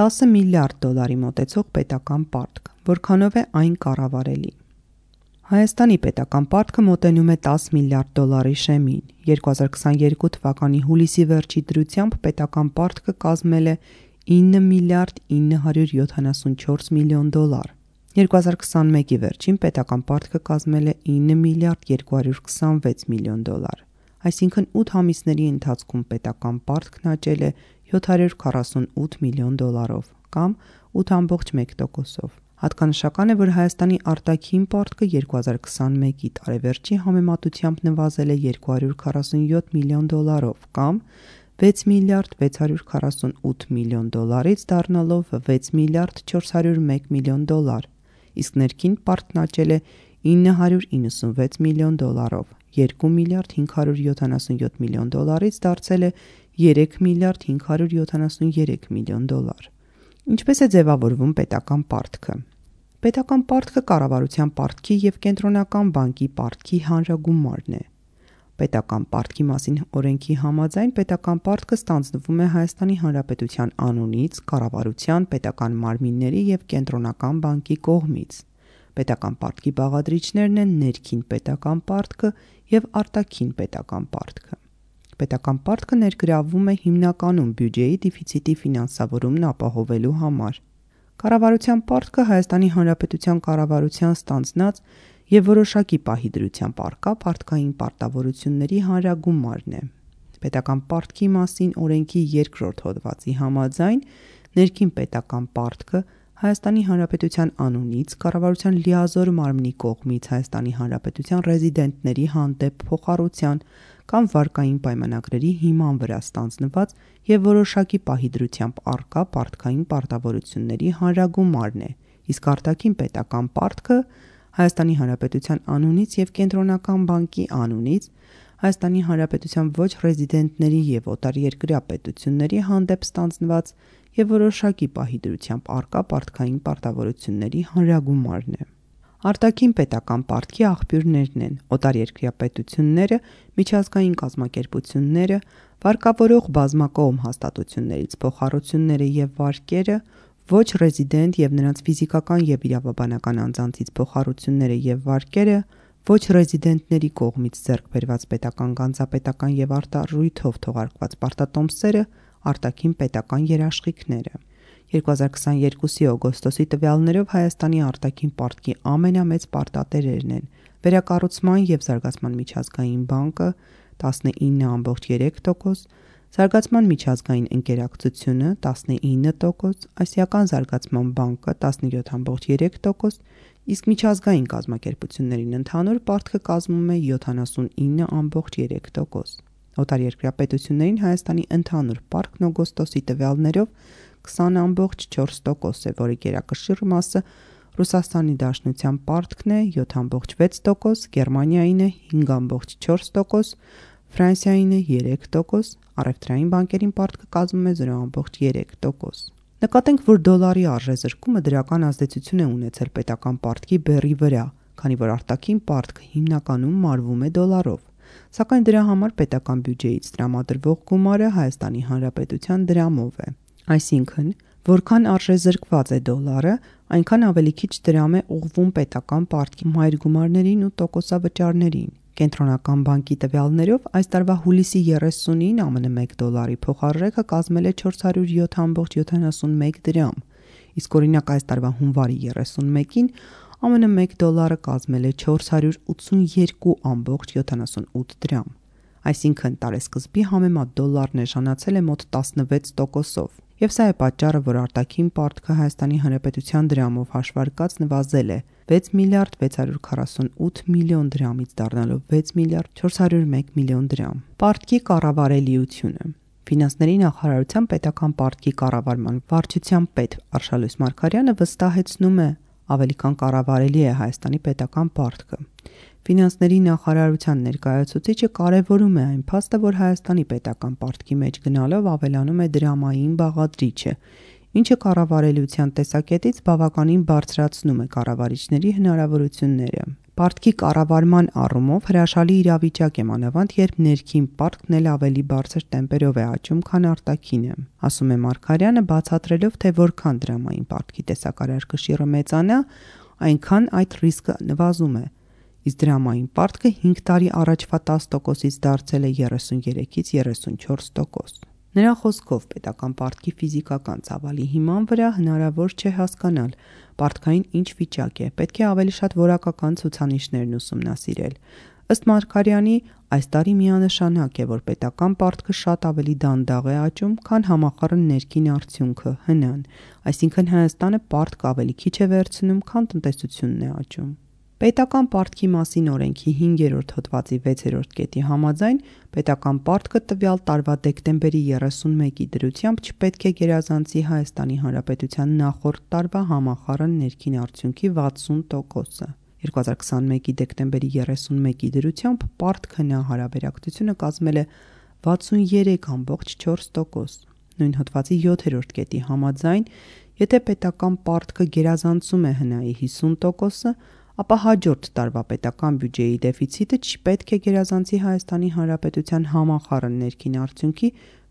10 միլիարդ դոլարի մոտեցող պետական պարտք, որքանով է այն կառավարելի։ Հայաստանի պետական պարտքը մոտենում է 10 միլիարդ դոլարի շեմին։ 2022 թվականի հուլիսի վերջի դրությամբ պետական պարտքը կազմել է 9 միլիարդ 974 միլիոն դոլար։ 2021-ի վերջին պետական պարտքը կազմել է 9 միլիարդ 226 միլիոն դոլար։ Այսինքն 8 ամիսների ընթացքում պետական պարտքն աճել է 748 միլիոն դոլարով կամ 8.1%-ով։ Հատկանշական է, որ Հայաստանի արտաքին պարտքը 2021-ի տարեվերջի համեմատությամբ նվազել է 247 միլիոն դոլարով կամ 6 միլիարդ 648 միլիոն դոլարից դառնալով 6 միլիարդ 401 միլիոն դոլար, իսկ ներքին պարտքն աճել է 996 միլիոն դոլարով, 2 միլիարդ 577 միլիոն դոլարից դարձել է 3 միլիարդ 573 միլիոն դոլար։ Ինչպես է ձևավորվում պետական պարտքը։ Պետական պարտքը կառավարության պարտքի և կենտրոնական բանկի պարտքի հանրագումարն է։ Պետական պարտքի մասին օրենքի համաձայն պետական պարտքը ստանձնվում է Հայաստանի Հանրապետության անունից, կառավարության, պետական մարմինների և կենտրոնական բանկի կողմից։ Պետական պարտքի բաղադրիչներն են ներքին պետական պարտքը և արտաքին պետական պարտքը։ Պետական պարտքը ներգրավվում է հիմնականում բյուջեի դեֆիցիտի ֆինանսավորումն ապահովելու համար։ Կառավարության պարտքը Հայաստանի Հանրապետության կառավարության ստանձնած և որոշակի պահի դրությամբ առկա պարտքային պարտավորությունների հանրագումարն է։ Պետական պարտքի մասին օրենքի 2-րդ հոդվածի համաձայն ներքին պետական պարտքը Հայաստանի Հանրապետության անունից, կառավարության լիազոր մարմնի կողմից Հայաստանի Հանրապետության ռեզիդենտների հանդեպ փոխառության կամ վարկային պայմանագրերի հիման վրա ստանձնված և որոշակի պահի դրությամբ առկա պարտքային պարտավորությունների հանրագումարն է, իսկ արտաքին պետական պարտքը Հայաստանի Հանրապետության անունից և կենտրոնական բանկի անունից Հայաստանի Հանրապետության ոչ ռեզիդենտների և օտարերկրյա պետությունների հանդեպ ստանձնված և որոշակի պահի դրությամբ առկա պարտքային պարտավորությունների հանրագումարն է։ Արտաքին պետական պարտքի աղբյուրներն են օտարերկրյա պետությունները, միջազգային կազմակերպությունները, վարկավորող բազմակողմ հաստատություններից փոխառությունները և վարկերը, ոչ ռեզիդենտ և նրանց ֆիզիկական և իրավաբանական անձանցից փոխառությունները և վարկերը, ոչ ռեզիդենտների կողմից ձեռք բերված պետական գանձապետական և արտառույթով թողարկված պարտատոմսերը, արտաքին պետական երաշխիքները։ 2022-ի օգոստոսի տվյալներով Հայաստանի արտաքին պարտքի ամենամեծ պարտատերերն են Վերակառուցման և զարգացման միջազգային բանկը 19.3%, Զարգացման միջազգային ընկերակցությունը 19%, Ասիական զարգացման բանկը 17.3%, իսկ միջազգային կազմակերպություններին ընդհանուր պարտքը կազմում է 79.3%։ Օտարերկրյա պետություններին Հայաստանի ընդհանուր պարտքն օգոստոսի տվյալներով 20.4% է, որի գերակշիռ մասը Ռուսաստանի Դաշնության պարտքն է 7.6%, Գերմանիային է 5.4%, Ֆրանսիային է 3%, առևտրային բանկերին պարտքը կազմում է 0.3%։ Նկատենք, որ դոլարի արժեզրկումը դրական ազդեցություն է ունեցել պետական պարտքի բեռի վրա, քանի որ արտաքին պարտքը հիմնականում մարվում է դոլարով, սակայն դրա համար պետական բյուջեից տրամադրվող գումարը Հայաստանի Հանրապետության դրամով է։ Այսինքն, որքան արժեզրկված է դոլարը, այնքան ավելի քիչ դրամ է ուղղվում պետական պարտքի մայրգումարներին ու տոկոսավճարներին։ Կենտրոնական բանկի տվյալներով այս տարվա հուլիսի 30-ին ԱՄՆ 1 դոլարի փոխարժեքը կազմել է 407.71 դրամ, իսկ օրինակ այս տարվա հունվարի 31-ին ԱՄՆ 1 դոլարը կազմել է 482.78 դրամ։ Այսինքն տարեսկզբի համեմատ դոլարն էժանացել է մոտ 16%-ով, և սա է պատճառը, որ արտաքին պարտքը Հայաստանի Հանրապետության դրամով հաշվարկած նվազել է 6 միլիարդ 648 միլիոն դրամից դառնալով 6 միլիարդ 401 միլիոն դրամ։ Պարտքի կառավարելիությունը։ Ֆինանսների նախարարության պետական պարտքի կառավարման վարչության պետ Արշալույս Մարգարյանը վստահեցնում է, ավելի քան կառավարելի է Հայաստանի պետական պարտքը։ Ֆինանսների նախարարության ներկայացուցիչը կարևորում է այն փաստը, որ Հայաստանի պետական պարտքի մեջ գնալով ավելանում է դրամային բաղադրիչը, ինչը կառավարելիության տեսակետից բավականին բարձրացնում է կառավարիչների հնարավորությունները։ Պարտքի կառավարման առումով հրաշալի իրավիճակ է, մանավանդ երբ ներքին պարտքն էլ ավելի բարձր տեմպերով է աճում, քան արտաքինը, ասում է Մարգարյանը, բացատրելով, թե որքան դրամային պարտքի տեսակարար կշիռը մեծանա, այնքան այդ ռիսկը նվազում է, իսկ դրամային պարտքը 5 տարի առաջվա 10%-ից դարձել է 33-ից 34%։ Նրա խոսքով պետական պարտքի ֆիզիկական ծավալի հիման վրա հնարավոր չէ հասկանալ պարտքային ինչ վիճակ է, պետք է ավելի շատ որակական ցուցանիշներն ուսումնասիրել։ Ըստ Մարգարյանի, այս տարի միանշանակ է, որ պետական պարտքը շատ ավելի դանդաղ է աճում, քան համախառն ներքին արդյունքը՝ ՀՆ-ն, այսինքն Հայաստանը պարտք ավելի քիչ է վերցնում, քան տնտեսությունն է աճում։ Պետական պարտքի մասին օրենքի 5-րդ հոդվածի 6-րդ կետի համաձայն պետական պարտքը տվյալ տարվա դեկտեմբերի 31-ի դրությամբ չպետք է գերազանցի Հայաստանի Հանրապետության նախորդ տարվա համախառն ներքին արդյունքի 60%-ը։ 2021-ի դեկտեմբերի 31-ի դրությամբ պարտք-ՀՆ հարաբերակցությունը կազմել է 63.4%։ Նույն հոդվածի 7-րդ կետի համաձայն, եթե պետական պարտքը գերազանցում է ՀՆ-ի 50%-ը, ապա հաջորդ տարվա պետական բյուջեի դեֆիցիտը չպետք է գերազանցի Հայաստանի Հանրապետության համախառն ներքին արդյունքի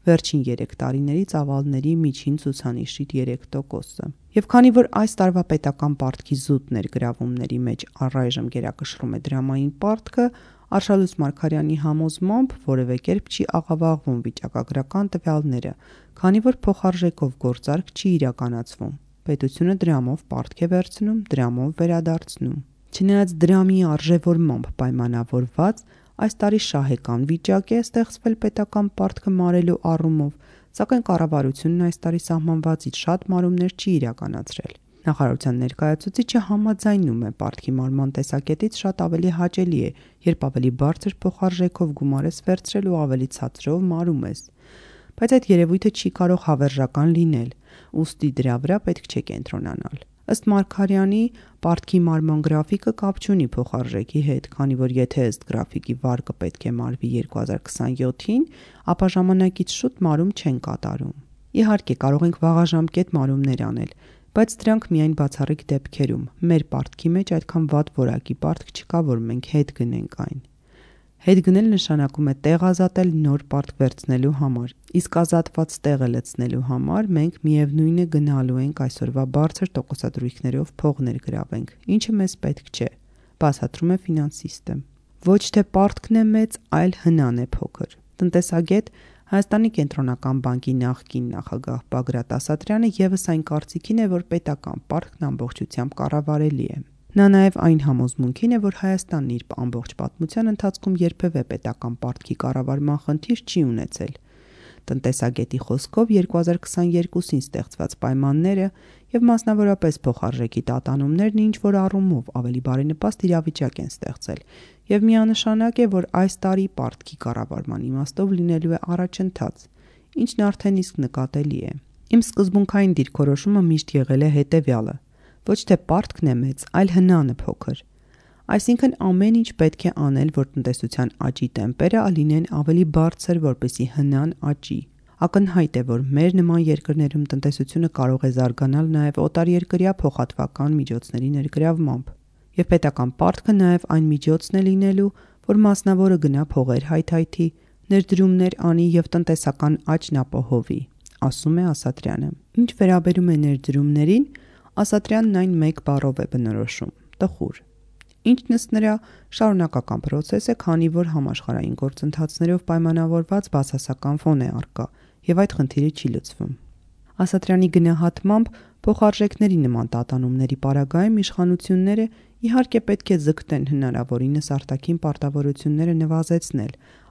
վերջին 3 տարիների ծավալների միջին ցուցանիշի 3%-ը։ Եվ քանի որ այս տարվա պետական պարտքի զուտ ներգրավումների մեջ առայժմ գերակշռում է դրամային պարտքը, Արշալույս Մարգարյանի համոզմամբ որևէ կերպ չի աղավաղվում վիճակագրական տվյալները, քանի որ փոխարժեքով գործարք չի իրականացվում։ Պետությունը դրամով պարտք է վերցնում, դրամով վերադարձնում։ Չնայած դրամի արժևորմամբ պայմանավորված, այս տարի շահեկան վիճակ է ստեղծվել պետական պարտքը մարելու առումով, սակայն կառավարությունն այս տարի սահմանվածից շատ մարումներ չի իրականացրել։ Նախարարության ներկայացուցիչը համաձայնում է պարտքի մարման տեսակետից շատ ավելի հաճելի է, երբ ավելի բարձր փոխարժեքով գումար ես վերցրել ու ավելի ցածրով մարում ես։ Բայց այդ երևույթը չի կարող հավերժական լինել, ուստի դրա վրա պետք չէ կենտրոնանալ։ Ըստ Մարգարյանի, պարտքի մարման գրաֆիկը կապ չունի փոխարժեքի հետ, քանի որ եթե ըստ գրաֆիկի վարկը պետք է մարվի 2027-ին, ապա ժամանակից շուտ մարում չեն կատարում։ Իհարկե, կարող ենք վաղաժամկետ մարումներ անել, բայց դրանք միայն բացառիկ դեպքերում։ Մեր պարտքի մեջ այդքան վատ որակի պարտք չկա, որ մենք հետ գնենք այն։ Հետ գնել նշանակում է տեղ ազատել նոր պարտք վերցնելու համար, իսկ ազատված տեղը լցնելու համար մենք միևնույնը գնալու ենք այսօրվա բարձր տոկոսադրույքներով փող ներգրավենք, ինչը մեզ պետք չէ, բացատրում է ֆինանսիստը։ Ոչ թե պարտքն է մեծ, այլ ՀՆ-ն է փոքր։ Տնտեսագետ Հայաստանի կենտրոնական բանկի նախկին նախագահ Բագրատ Ասատրյանը ևս այն կարծիքին է, որ պետական պարտքն ամբողջությամբ կառավարելի է։ Նա նաև այն համոզմունքին է, որ Հայաստանն իր ամբողջ պատմության ընթացքում երբևէ պետական պարտքի կառավարման խնդիր չի ունեցել։ Տնտեսագետի խոսքով 2022-ին ստեղծված պայմանները եւ մասնավորապես փոխարժեքի տատանումներն ինչ-որ առումով ավելի բարենպաստ իրավիճակ են ստեղծել եւ միանշանակ է, որ այս տարի պարտքի կառավարման իմաստով լինելու է առաջընթաց, ինչն արդեն իսկ նկատելի է։ Իմ սկզբունքային դիրքորոշումը միշտ եղել է հետեւյալը. ոչ թե պարտքն է մեծ, այլ ՀՆ-ն է փոքր։ Այսինքն ամեն ինչ պետք է անել, որ տնտեսության աճի տեմպերը լինեն ավելի բարձր, որպեսզի ՀՆ-ն աճի։ Ակնհայտ է, որ մեր նման երկրներում տնտեսությունը կարող է զարգանալ նաև օտարերկրյա փոխհատվական միջոցների ներգրավմամբ։ Եվ պետական պարտքը նաև այն միջոցն է լինելու, որ մասնավորը գնա փողեր հայթայթի, ներդրումներ անի եւ տնտեսական աճն ապահովի, ասում է Ասատրյանը։ Ինչ վերաբերում է ներդրումներին, Ասատրյանն այն մեկ բառով է բնորոշում՝ տխուր։ Ինչն ըստ նրա շարունակական պրոցես է, քանի որ համաշխարհային գործընթացներով պայմանավորված բացասական ֆոն է առկա եւ այդ խնդիրը չի լուծվում։ Ասատրյանի գնահատմամբ փոխարժեքների նման տատանումների պարագայում իշխանությունները իհարկե պետք է ձգտեն հնարավորինս արտաքին պարտավորությունները նվազեցնել,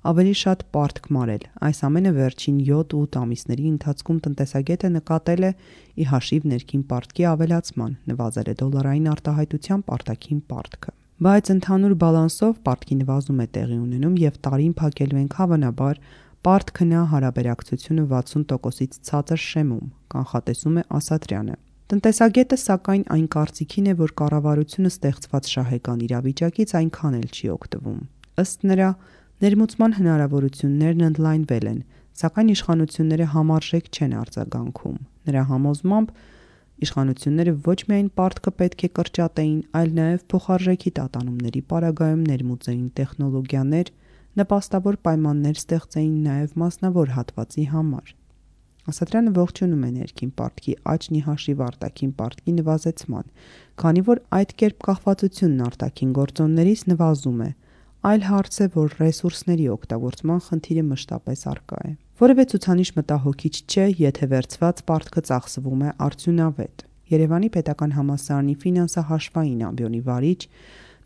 ավելի շատ պարտք մարել։ Այս ամենը վերջին 7-8 ամիսների ընթացքում տնտեսագետը նկատել է ի հաշիվ ներքին պարտքի ավելացման, նվազել է դոլարային արտահայտությամբ արտաքին պարտքը։ Բայց ընդհանուր բալանսով պարտքի նվազում է տեղի ունենում եւ տարին փակելու ենք հավանաբար պարտք-ՀՆ հարաբերակցությունը 60%-ից ցածր շեմում, կանխատեսում է Ասատրյանը։ Տնտեսագետը սակայն այն կարծիքին է, որ կառավարությունը ստեղծված շահեկան իրավիճակից այնքան էլ չի օգտվում։ Ըստ նրա, ներմուծման հնարավորություններն ընդլայնվել են, սակայն իշխանությունները համարժեք չեն արձագանքում։ Նրա համոզմամբ Իշխանությունները ոչ միայն պարտքը պետք է կրճատեին, այլ նաև փոխարժեքի տատանումների պարագայում ներմուծեին տեխնոլոգիաներ, նպաստավոր պայմաններ ստեղծեին նաև մասնավոր հատվածի համար։ Ասատրյանը ողջունում է ներքին պարտքի աճն ի հաշիվ արտաքին պարտքի նվազեցման, քանի որ այդ կերպ կախվածությունն արտաքին գործոններից նվազում է։ Այլ հարց է, որ ռեսուրսների օգտագործման խնդիրը մշտապես առկա է։ Որևէ ցուցանիշ մտահոգիչ չէ, եթե վերցված պարտքը ծախսվում է արդյունավետ։ Երևանի պետական համալսարանի ֆինանսահաշվային ամբիոնի վարիչ,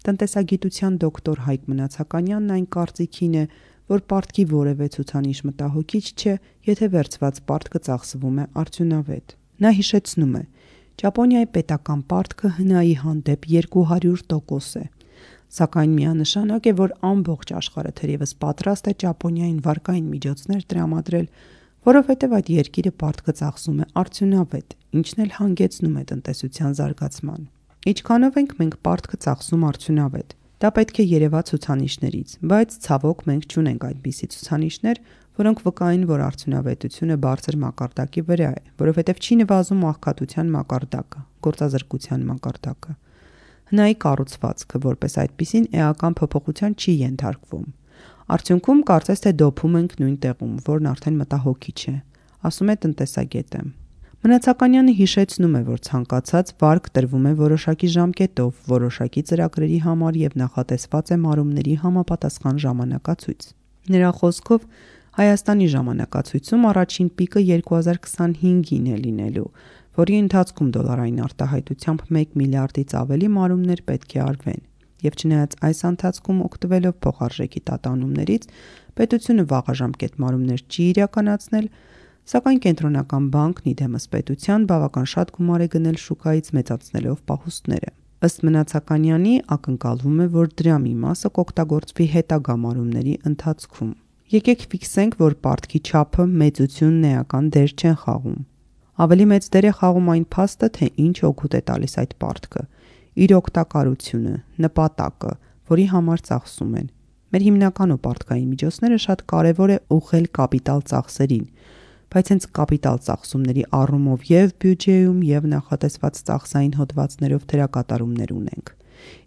տնտեսագիտության դոկտոր Հայկ Մնացականյանն այն կարծիքին է, որ պարտքի որևէ ցուցանիշ մտահոգիչ չէ, եթե վերցված պարտքը ծախսվում է արդյունավետ։ Նա հիշեցնում է. Ճապոնիայի պետական պարտքը ՀՆԱ-ի հանդեպ 200% է, սակայն միանշանակ է, որ ամբողջ աշխարհը թերևս պատրաստ է Ճապոնիային վարկային միջոցներ տրամադրել, որովհետև այդ երկիրը պարտքը ծախսում է արդյունավետ, ինչն էլ հանգեցնում է տնտեսության զարգացման։ Ինչքանով ենք մենք պարտքը ծախսում արդյունավետ։ Դա պետք է երևա ցուցանիշներից, բայց ցավոք մենք չունենք այդպիսի ցուցանիշներ, որոնք վկային, որ արդյունավետությունը բարձր մակարդակի վրա է, որովհետև չի նվազում աղքատության մակարդակը, գործազրկության մակարդակը։ ՀՆԱ-ի կառուցվածքը որպես այդպիսին էական փոփոխության չի ենթարկվում։ Արդյունքում կարծես թե դոփում ենք նույն տեղում, որն արդեն մտահոգիչ է, ասում է տնտեսագետը։ Մնացականյանը հիշեցնում է, որ ցանկացած վարկ տրվում է որոշակի ժամկետով, որոշակի ծրագրերի համար եւ նախատեսված է մարումների համապատասխան ժամանակացույց։ Նրա խոսքով Հայաստանի ժամանակացույցում առաջին պիկը 2025-ին է լինելու, որի ընթացքում դոլարային արտահայտությամբ 1 միլիարդից ավելի մարումներ պետք է արվեն։ Եվ չնայած այս ընթացքում օգտվելով փոխարժեքի տատանումներից, պետությունը վաղաժամկետ մարումներ չի իրականացնել, սակայն կենտրոնական բանկն իդեմս պետության բավական շատ գումար է գնել շուկայից մեծացնելով պահուստները։ Ըստ Մնացականյանի ակնկալվում է, որ դրա մի մասը կօգտագործվի հետագա մարումների ընթացքում։ Եկեք ֆիքսենք, որ պարտքի չափը, մեծությունն էական դեր չեն խաղում։ Ավելի մեծ դեր է խաղում այն փաստը, թե ինչ օգուտ է տալիս այդ պարտքը, իր օգտակարությունը, նպատակը, որի համար ծախսում են։ Մեր հիմնական ու պարտքային միջոցները շատ կարևոր է ուղղել կապիտալ ծախսերին, բայց հենց կապիտալ ծախսումների առումով եւ բյուջեում եւ նախատեսված ծախսային հոդվածներով դերակատարումներ ունենք։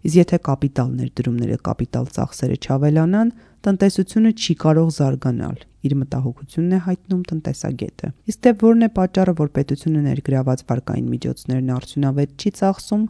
Իսկ եթե կապիտալ ներդրումները կապիտալ ծախսերը չավելանան, տնտեսությունը չի կարող զարգանալ, իր մտահոգությունն է հայտնում տնտեսագետը։ Իսկ թե որն է պատճառը, որ պետությունը ներգրաված վարկային միջոցներն արդյունավետ չի ծախսում,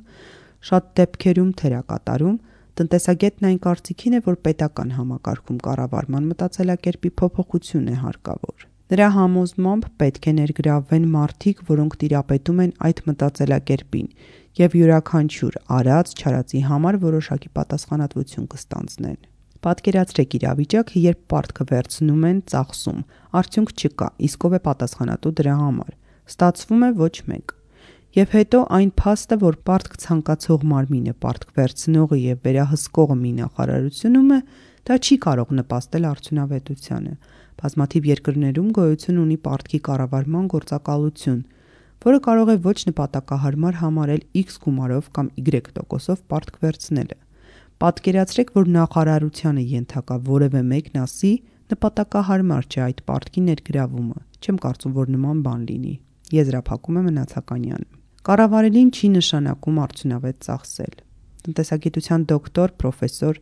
շատ դեպքերում թերակատարում, տնտեսագետն այն կարծիքին է, որ պետական համակարգում կառավարման մտածելակերպի փոփոխություն է հարկավոր։ Նրա համոզմամբ պետք է ներգրավվեն մարդիկ, որոնք տիրապետում են այդ մտածելակերպին եւ յուրաքանչյուր արած-չարածի համար որոշակի պատասխանատվություն կստանձնեն։ Պատկերացրեք իրավիճակ, երբ պարտքը վերցնում են, ծախսում, արդյունք չկա, իսկ ով է պատասխանատու դրա համար։ Ստացվում է ոչ մեկ։ Եվ հետո այն փաստը, որ պարտք ցանկացող մարմինը, պարտք վերցնողը եւ վերահսկողը մի նախարարությունում է, դա չի կարող նպաստել արդյունավետությանը։ Բազմաթիվ երկրներում գոյություն ունի պարտքի կառավարման գործակալություն, որը կարող է ոչ նպատակահարմար համարել X գումարով կամ Y%-ով պարտք վերցնելը։ Պատկերացրեք, որ նախարարությանը ենթակա որևէ մեկն ասի, նպատակահարմար չէ այդ պարտքի ներգրավումը։ Չեմ կարծում, որ նման բան լինի։ Եզրափակում է Մնացականյանը։ Կառավարելին չի նշանակում արդյունավետ ծախսել։ Տնտեսագիտության դոկտոր, պրոֆեսոր,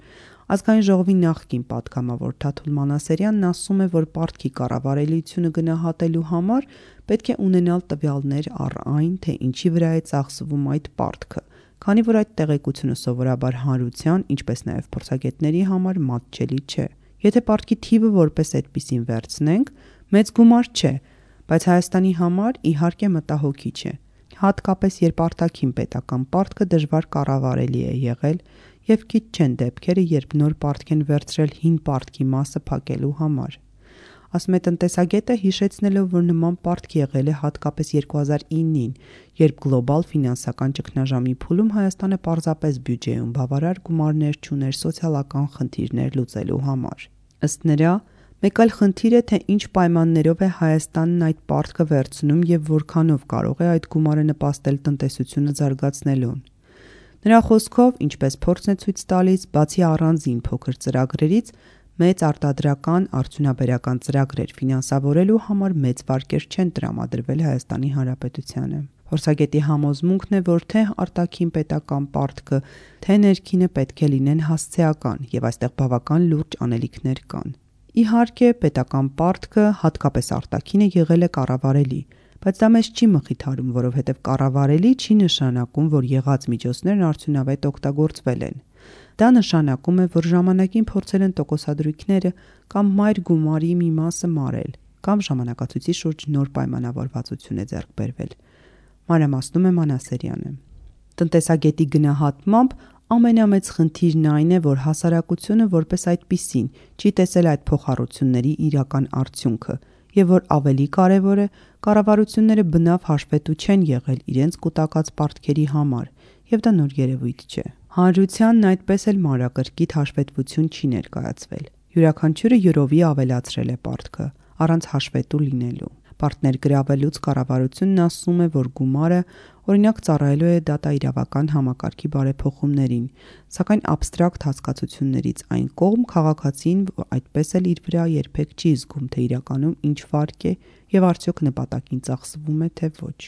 Ազգային ժողովի նախկին պատգամավոր Թաթուլ Մանասերյանն ասում է, որ պարտքի կառավարելիությունը գնահատելու համար պետք է ունենալ տվյալներ առ այն, թե ինչի վրա է ծախսվում այդ պարտքը, քանի որ այդ տեղեկությունը սովորաբար հանրության, ինչպես նաև փորձագետների համար մատչելի չէ։ Եթե պարտքի թիվը որպես այդպիսին վերցնենք, մեծ գումար չէ, բայց Հայաստանի համար իհարկե մտահոգիչ է, հատկապես երբ արտաքին պետական պարտքը դժվար կառավարելի է եղել եւ քիչ չեն դեպքերը, երբ նոր պարտք են վերցրել հին պարտքի մասը փակելու համար։ Ասում է տնտեսագետը, հիշեցնելով, որ նման պարտք եղել է հատկապես 2009-ին, երբ գլոբալ ֆինանսական ճգնաժամի փուլում Հայաստանը պարզապես բյուջեում բավարար գումարներ չուներ սոցիալական խնդիրներ լուծելու համար։ Ըստ նրա, մեկ այլ խնդիր է, թե ինչ պայմաններով է Հայաստանն այդ պարտքը վերցնում եւ որքանով կարող է այդ գումարը նպաստել տնտեսությունը զարգացնելուն։ Նրա խոսքով, ինչպես փորձն է ցույց տալիս, բացի առանձին փոքր ծրագրերից, մեծ արտադրական արդյունաբերական ծրագրեր ֆինանսավորելու համար մեծ վարկեր չեն տրամադրվել Հայաստանի Հանրապետությանը։ Փորձագետի համոզմունքն է, որ թե արտաքին պետական պարտքը, թե ներքինը պետք է լինեն հասցեական եւ այստեղ բավական լուրջ անելիքներ կան։ Իհարկե, պետական պարտքը, հատկապես արտաքինը, եղել է կառավարելի, բայց դա մեզ չի մխիթարում, որովհետև կառավարելի չի նշանակում, որ եղած միջոցներն արդյունավետ օգտագործվել են։ Դա նշանակում է, որ ժամանակին փորձել են տոկոսադրույքները կամ մայր գումարի մի մասը մարել, կամ ժամանակացույցի շուրջ նոր պայմանավորվածություն է ձեռք բերվել։ Մանրամասնում է Մանասերյանը։ Տնտեսագետի գնահատմամբ ամենամեծ խնդիրն այն է, որ հասարակությունը որպես այդպիսին չի տեսել այդ փոխառությունների իրական արդյունքը եւ որ ավելի կարեւոր է, կառավարությունները բնավ հաշվետու չեն եղել իրենց կուտակած պարտքերի համար եւ դա նոր երևույթ չէ։ Հանրությանն այդպես էլ մանրակրկիտ հաշվետվություն չի ներկայացվել։ Յուրաքանչյուրը յուրովի ավելացրել է պարտքը, առանց հաշվետու լինելու։ Պարտներ գրավելուց կառավարությունն ասում է, որ գումարը օրինակ ծառայելու է դատաիրավական համակարգի բարեփոխումներին, սակայն աբստրակտ հասկացություններից այն կողմ քաղաքացին այդպես էլ իր վրա երբեք չի զգում, թե իրականում ինչ վարկ է եւ արդյոք նպատակին ծախսվում է, թե ոչ։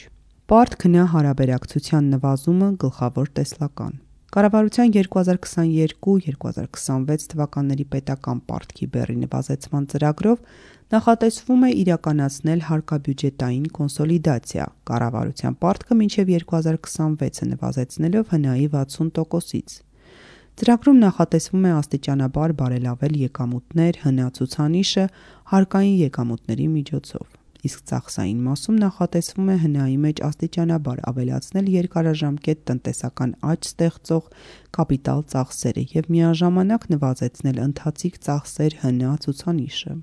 Պարտքնա հարաբերակցության նվազումը գլխավոր տեսլական։ Կառավարության 2022-2026 թվականների պետական պարտքի բեռի նվազեցման ծրագրով նախատեսվում է իրականացնել հարկաբյուջետային կոնսոլիդացիա, կառավարության պարտքը մինչև 2026-ը նվազեցնելով ՀՆԱ-ի 60%-ից։ Ծրագրում նախատեսվում է աստիճանաբար բարելավել եկամուտներ, ՀՆԱ ցուցանիշը հարկային եկամուտների միջոցով։ Իսկ ծախսային մասում նախատեսվում է ՀՆԱ-ի մեջ աստիճանաբար ավելացնել երկարաժամկետ տնտեսական աճ ստեղծող կապիտալ ծախսերը եւ միաժամանակ նվազեցնել ընթացիկ ծախսեր ՀՆԱ ցուցանիշը։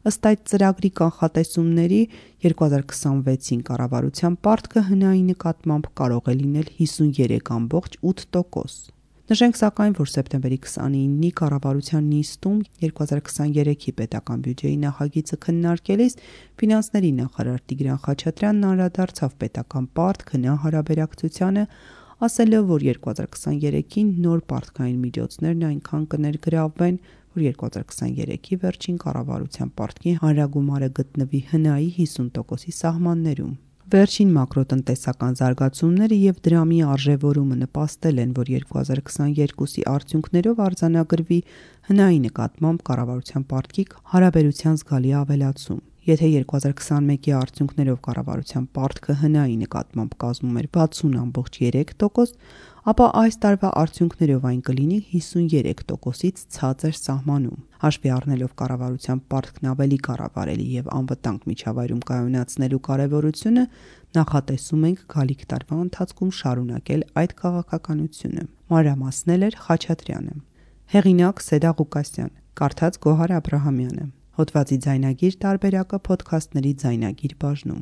Ըստ այդ ծրագրի կանխատեսումների 2026-ին կառավարության պարտքը ՀՆԱ-ի նկատմամբ կարող է լինել 53.8%։ Նշենք սակայն, որ սեպտեմբերի 29-ի կառավարության նիստում 2023-ի պետական բյուջեի նախագիծը քննարկելիս ֆինանսների նախարար Տիգրան Խաչատրյանն անդրադարձավ պետական պարտք-ՀՆԱ հարաբերակցությանը, ասելով, որ 2023-ին նոր պարտքային միջոցներն այնքան կներգրավվեն, որ 2023-ի վերջին կառավարության պարտքի հանրագումարը գտնվի ՀՆԱ-ի 50%-ի սահմաններում։ Վերջին մակրոտնտեսական զարգացումները եւ դրամի արժեվորումը նպաստել են, որ 2022-ի արդյունքներով արձանագրվի ՀՆԱ-ի նկատմամբ կառավարության պարտքի հարաբերության զգալի ավելացում։ Եթե 2021-ի արդյունքներով կառավարության պարտքը ՀՆԱ-ի նկատմամբ կազմում էր 60.3%, ապա այս տարվա արդյունքներով այն կլինի 53%-ից ցածր սահմանում։ Հաշվի առնելով կառավարության պարտքն ավելի կառավարելի եւ անվտանգ միջավայրում կայունացնելու կարեւորությունը, նախատեսում ենք գալիք տարվա ընթացքում շարունակել այդ քաղաքականությունը։ Մանրամասնել էր Խաչատրյանը։ Հեղինակ Սեդա Ղուկասյան, կարդաց Գոհար Աբրահամյանը։ Հոդվածի ձայնագիր տարբերակը փոդքասթների ձայնագիր բաժնում։